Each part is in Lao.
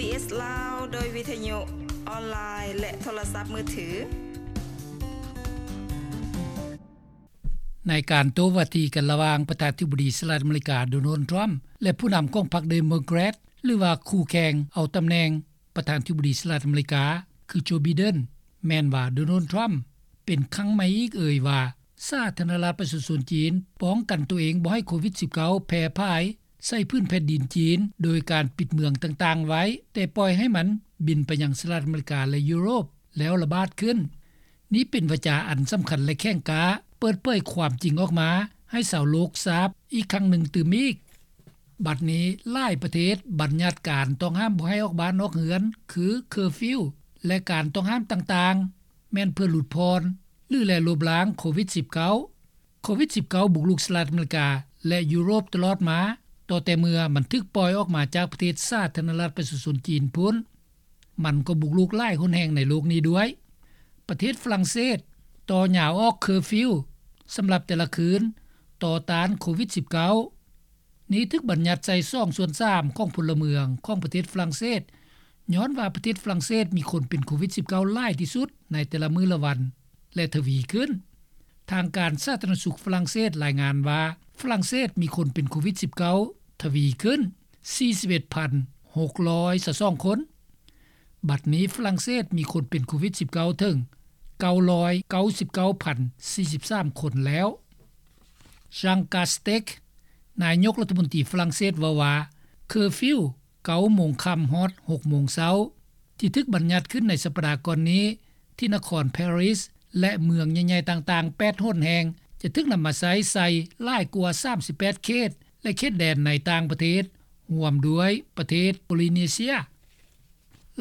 ເອສ ລາວ ໂດຍວິທະຍຸ ອອນລາຍ ແລະ ໂທລະສັບມືຖື. ໃນການໂຕ້ວາທີກັນລະຫວ່າງປະທານາທິບໍດີສະຫະລັດອາເມລິກາ ໂດນັລ ທຣຳ ແລະ ຜູ້ນຳຂອງພັກເດໂມແຄຣດ ຫຼືວ່າຄູ່ແຂ່ງເອົາຕຳແໜ່ງປະທານາທິບໍດີສະຫະລັດອາເມລິກາ ຄື ໂຈ ໄບເດັນ ແມ່ນວ່າ ໂດນັລ ທຣຳ ເປັນຄັ້ງໃໝ່ອີກເອີຍວ່າ ສາທາລະນະລັດປະຊາຊົນຈີນປ້ອງກັນໂຕເອງບໍ່ໃຫ້ໂຄວິດສິບເກົ້າ ແຜ່ຜາຍໃສ່ພື້ນແຜ່ນດິນຈີນ ໂດຍການປິດເມືອງຕ່າງໆໄວ້ ແຕ່ປ່ອຍໃຫ້ມັນບິນໄປຍັງສະຫະລັດອາເມລິກາ ແລະ ຢູໂຣບ ແລ້ວລະບາດຂຶ້ນ. ນີ້ເປັນວາຈາອັນສຳຄັນ ແລະ ແຂງກ້າ ເປີດເຜີຍຄວາມຈິງອອກມາໃຫ້ຊາວໂລກຊາບອີກຄັ້ງໜຶ່ງຕື່ມອີກ. ບັດນີ້ຫຼາຍປະເທດບັນຍັດການຕ້ອງຫ້າມບໍ່ໃຫ້ອອກບ້ານອອກເຮືອນ ຄື ເຄີຟິວ ແລະ ການຕ້ອງຫ້າມຕ່າງໆ ແມ່ນເພື່ອຫຼຸດຜ່ອນ ຫຼື ແລະ ລົບລ້າງໂຄວິດສິບເກົ້າ. ໂຄວິດສິບເກົ້າ ບຸກລຸກສະຫະລັດອາເມລິກາ ແລະ ຢູໂຣບຕະຫຼອດມາ ຕໍ່ແຕ່ເມື່ອມັນຖືກປ່ອຍອອກມາຈາກປະເທດສາທາລະນະລັດປະຊາຊົນຈີນພຸ້ນ, ມັນກໍບຸກລຸກຫຼາຍຫົນແຫ່ງໃນໂລກນີ້ດ້ວຍ. ປະເທດຝຣັ່ງເສດຕໍ່ຍາວອອກເຄີຟິວສຳລັບແຕ່ລະຄືນ ຕໍ່ຕ້ານໂຄວິດສິບເກົ້າ. ນີ້ຖືກບັນຍັດໃສ່ສອງສ່ວນສາມຂອງພົນລະເມືອງຂອງປະເທດຝຣັ່ງເສດ ຍ້ອນວ່າປະເທດຝຣັ່ງເສດມີຄົນເປັນໂຄວິດສິບເກົ້າຫຼາຍທີ່ສຸດໃນແຕ່ລະມື້ລະວັນ ແລະ ທະວີຂຶ້ນ. ທາງການສາທາລະນະສຸກຝຣັ່ງເສດລາຍງານວ່າ ຝຣັ່ງເສດມີຄົນເປັນໂຄວິດສິບເກົ້າທະວີຂຶ້ນສີ່ສິບເອັດພັນຫົກຮ້ອຍຊາວສອງຄົນ. ບັດນີ້ຝຣັ່ງເສດມີຄົນເປັນໂຄວິດສິບເກົ້າເຖິງເກົ້າຮ້ອຍເກົ້າສິບເກົ້າພັນສີ່ສິບສາມຄົນແລ້ວ. ຊາງກາສເຕັກ ນາຍົກລັດຖະມົນຕີຝຣັ່ງເສດເວົ້າວ່າ ເຄີຟິວເກົ້າໂມງຄ່ຳຮອດຫົກໂມງເຊົ້າ ທີ່ຖືກບັນຍັດຂຶ້ນໃນສັບປະດາກ່ອນນີ້ ທີ່ນະຄອນປາຣີສ ແລະ ເມືອງໃຫຍ່ໆຕ່າງໆແປດຫົນແຫ່ງ ຈະຖືກນຳມາໃຊ້ໃສ່ຫຼາຍກວ່າສາມສິບແປດເຂດ ແລະ ເຂດແດນໃນຕ່າງປະເທດ ຮ່ວມດ້ວຍປະເທດໂປລິເນເຊຍ.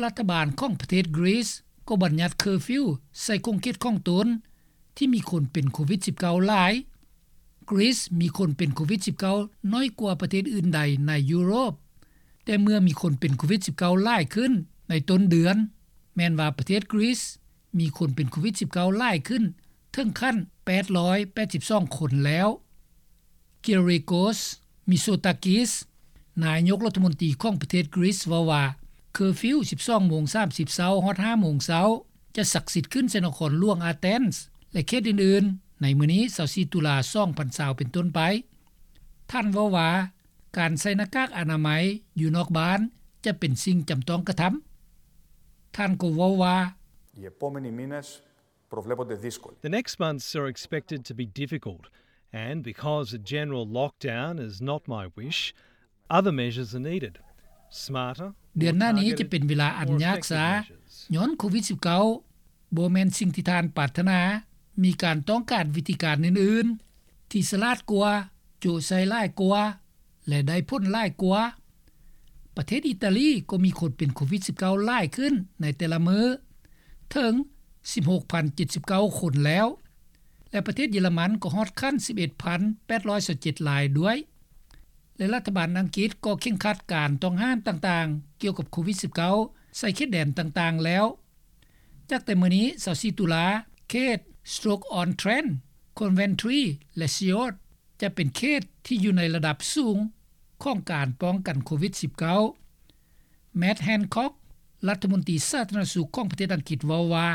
ລັດຖະບານຂອງປະເທດກຣີສກໍບັນຍັດເຄີຟິວໃສ່ຂົງເຂດຂອງຕົນ ທີ່ມີຄົນເປັນໂຄວິດສິບເກົ້າຫຼາຍ. ກຣີສມີຄົນເປັນໂຄວິດສິບເກົ້າໜ້ອຍກວ່າປະເທດອື່ນໃດໃນຢູໂຣບ, ແຕ່ເມື່ອມີຄົນເປັນໂຄວິດສິບເກົ້າຫຼາຍຂຶ້ນໃນຕົ້ນເດືອນ, ແມ່ນວ່າປະເທດກຣີສມີຄົນເປັນໂຄວິດສິບເກົ້າຫຼາຍຂຶ້ນເຖິງຂັ້ນແປດຮ້ອຍແປດສິບສອງຄົນແລ້ວ. ເກເຣໂກສ ມິໂຊຕາກິສ ນາຍົກລັດຖະມົນຕີຂອງປະເທດກຣີສເວົ້າວ່າ ເຄີຟິວສິບສອງໂມງສາມສິບເຊົ້າຮອດຫ້າໂມງເຊົ້າ ຈະສັກສິດຂຶ້ນໃສ່ນະຄອນຫຼວງອາເທນ ແລະ ເຂດອື່ນໆ ໃນມື້ນີ້ຊາວສີ່ຕຸລາສອງພັນຊາວເປັນຕົ້ນໄປ. ທ່ານເວົ້າວ່າ ການໃສ່ໜ້າກາກອະນາໄມຢູ່ນອກບ້ານຈະເປັນສິ່ງຈຳຕ້ອງກະທຳ. ທ່ານກໍເວົ້າວ່າ The next months are expected to be difficult, and because a general lockdown is not my wish, other measures are needed. Smarter, ເດືອນໜ້ານີ້ຈະເປັນເວລາອັນຍາກຊາ ຍ້ອນໂຄວິດສິບເກົ້າບໍ່ແມ່ນສິ່ງທີ່ທ່ານປາດຖະໜາ. ມີການຕ້ອງການວິທີການອື່ນໆ ທີ່ສະຫຼາດກວ່າ, ໂຈະໃສ່ຫຼາຍກວ່າ ແລະ ໄດ້ຜົນຫຼາຍກວ່າ. ປະເທດອີຕາລີກໍມີຄົນເປັນໂຄວິດສິບເກົ້າຫຼາຍຂຶ້ນໃນແຕ່ລະມື້ ເຖິງສິບຫົກພັນເຈັດສິບເກົ້າຄົນແລ້ວ ແລະ ປະເທດເຢຍລະມັນກໍຮອດຂັ້ນສິບເອັດພັນແປດຮ້ອຍຊາວເຈັດລາຍດ້ວຍ ແລະ ລັດຖະບານອັງກິດກໍເຄັ່ງຄັດການຕ້ອງຫ້າມຕ່າງໆກ່ຽວກັບໂຄວິດສິບເກົ້າໃສ່ເຂດແດນຕ່າງໆແລ້ວ. ຈາກແຕ່ມື້ນີ້ຊາວສີ່ຕຸລາ ເຂດ Stoke-on-Trent, Coventry ແລະ Sheffield ຈະເປັນເຂດທີ່ຢູ່ໃນລະດັບສູງຂອງການປ້ອງກັນໂຄວິດສິບເກົ້າ. ແມັດ ແຮນຄອກ ລັດຖະມົນຕີສາທາລະນະສຸກຂອງປະເທດອັງກິດເວົ້າວ່າ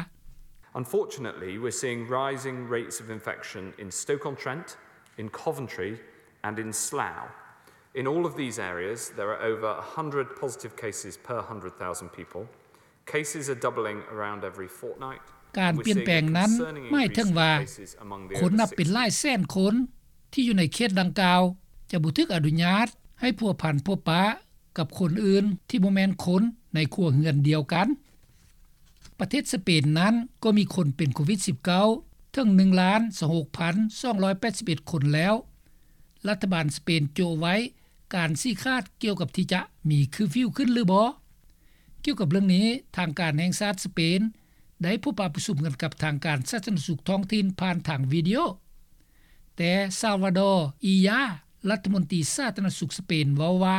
Unfortunately, we're seeing rising rates of infection in Stoke-on-Trent, in Coventry and in Slough. In all of these areas, there are over a hundred positive cases per hundred thousand people. Cases are doubling around every fortnight. ການປ່ຽນແປງນັ້ນໝາຍເຖິງວ່າ ຄົນນັບເປັນຫຼາຍແສນຄົນທີ່ຢູ່ໃນເຂດດັ່ງກ່າວ ຈະບໍ່ຖືກອະນຸຍາດໃຫ້ພົວພັນພົບປະກັບຄົນອື່ນທີ່ບໍ່ແມ່ນຄົນໃນຄົວເຮືອນດຽວກັນ. ປະເທດສະເປນນັ້ນກໍມີຄົນເປັນໂຄວິດສິບເກົ້າເຖິງໜຶ່ງລ້ານຊາວຫົກພັນສອງຮ້ອຍແປດສິບເອັດຄົນແລ້ວ. ລັດຖະບານສະເປນໂຈະໄວ້ການຊີ້ຂາດກ່ຽວກັບທີ່ຈະມີເຄີຟິວຂຶ້ນຫຼືບໍ່. ກ່ຽວກັບເລື່ອງນີ້, ທາງການແຫ່ງຊາດສະເປນໄດ້ພົບປະປະຊຸມກັນກັບທາງການສາທາລະນະສຸກທ້ອງຖິ່ນຜ່ານທາງວິດີໂອ, ແຕ່ ຊາວວາດໍ ອີຢາ ລັດຖະມົນຕີສາທາລະນະສຸກສະເປນເວົ້າວ່າ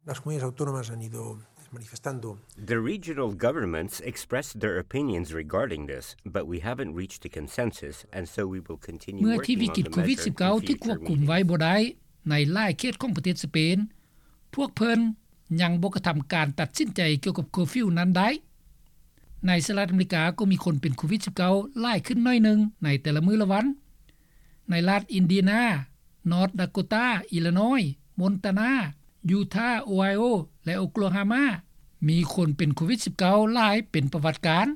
Las comunidades autónomas han ido manifestando. The regional governments expressed their opinions regarding this, but we haven't reached a consensus, and so we will continue working on the measure in future meetings. ເມື່ອທີ່ວິກິດໂຄວິດສິບເກົ້າຖືກຄວບຄຸມໄວ້ບໍ່ໄດ້ໃນຫຼາຍເຂດຂອງປະເທດສະເປນ, ພວກເພິ່ນ ຍັງບໍ່ກະທຳການຕັດສິນໃຈກ່ຽວກັບເຄີຟິວນັ້ນໄດ້. ໃນສະຫະລັດອາເມລິກາກໍມີຄົນເປັນໂຄວິດ-19 ຫຼາຍຂຶ້ນໜ້ອຍໜຶ່ງໃນແຕ່ລະມື້ລະວັນ. ໃນລັດອິນເດຍນາ, ນອດດາໂກຕາ, ອີລານ້ອຍ, ມົນຕານາ, ຢູທາ, ໂອໄຮໂອ ແລະ ໂອໂກລາໂຮມາ ມີຄົນເປັນໂຄວິດ-19 ຫຼາຍເປັນປະຫວັດການ.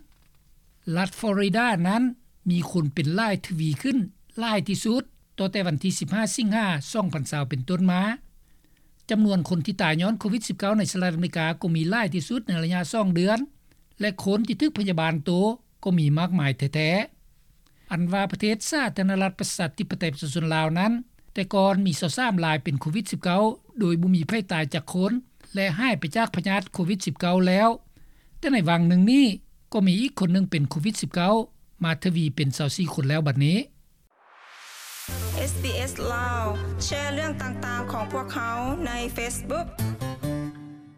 ລັດຟລໍຣິດານັ້ນມີຄົນເປັນຫຼາຍທະວີຂຶ້ນຫຼາຍທີ່ສຸດ ຕໍ່ແຕ່ວັນທີສິບຫ້າ ສິງຫາ ສອງພັນຊາວ ເປັນຕົ້ນມາ. ຈຳນວນຄົນທີ່ຕາຍຍ້ອນໂຄວິດ-19 ໃນສະຫະລັດອາເມລິກາກໍມີຫຼາຍທີ່ສຸດໃນໄລຍະສອງເດືອນ ແລະ ຄົນທີ່ຖືກພະຍາບານໂຕກໍມີມາກມາຍແທ້ໆ. ອັນວ່າປະເທດສາທາລະນະລັດປະຊາທິປະໄຕປະຊາຊົນລາວນັ້ນ ແຕ່ກ່ອນມີຊາວສາມລາຍເປັນໂຄວິດ-19 ໂດຍບໍ່ມີໃຜຕາຍຈັກຄົນ ແລະ ຫາຍໄປຈາກພະຍາດໂຄວິດ-19 ແລ້ວ, ແຕ່ໃນຫວ່າງໜຶ່ງນີ້ກໍມີອີກຄົນໜຶ່ງເປັນໂຄວິດ-19 ມາທະວີເປັນຊາວສີ່ຄົນແລ້ວບັດນີ້. ເອສບີເອສ ລາວ ແຊເລື່ອງຕ່າງໆຂອງພວກເຮົາໃນເຟສບຸກ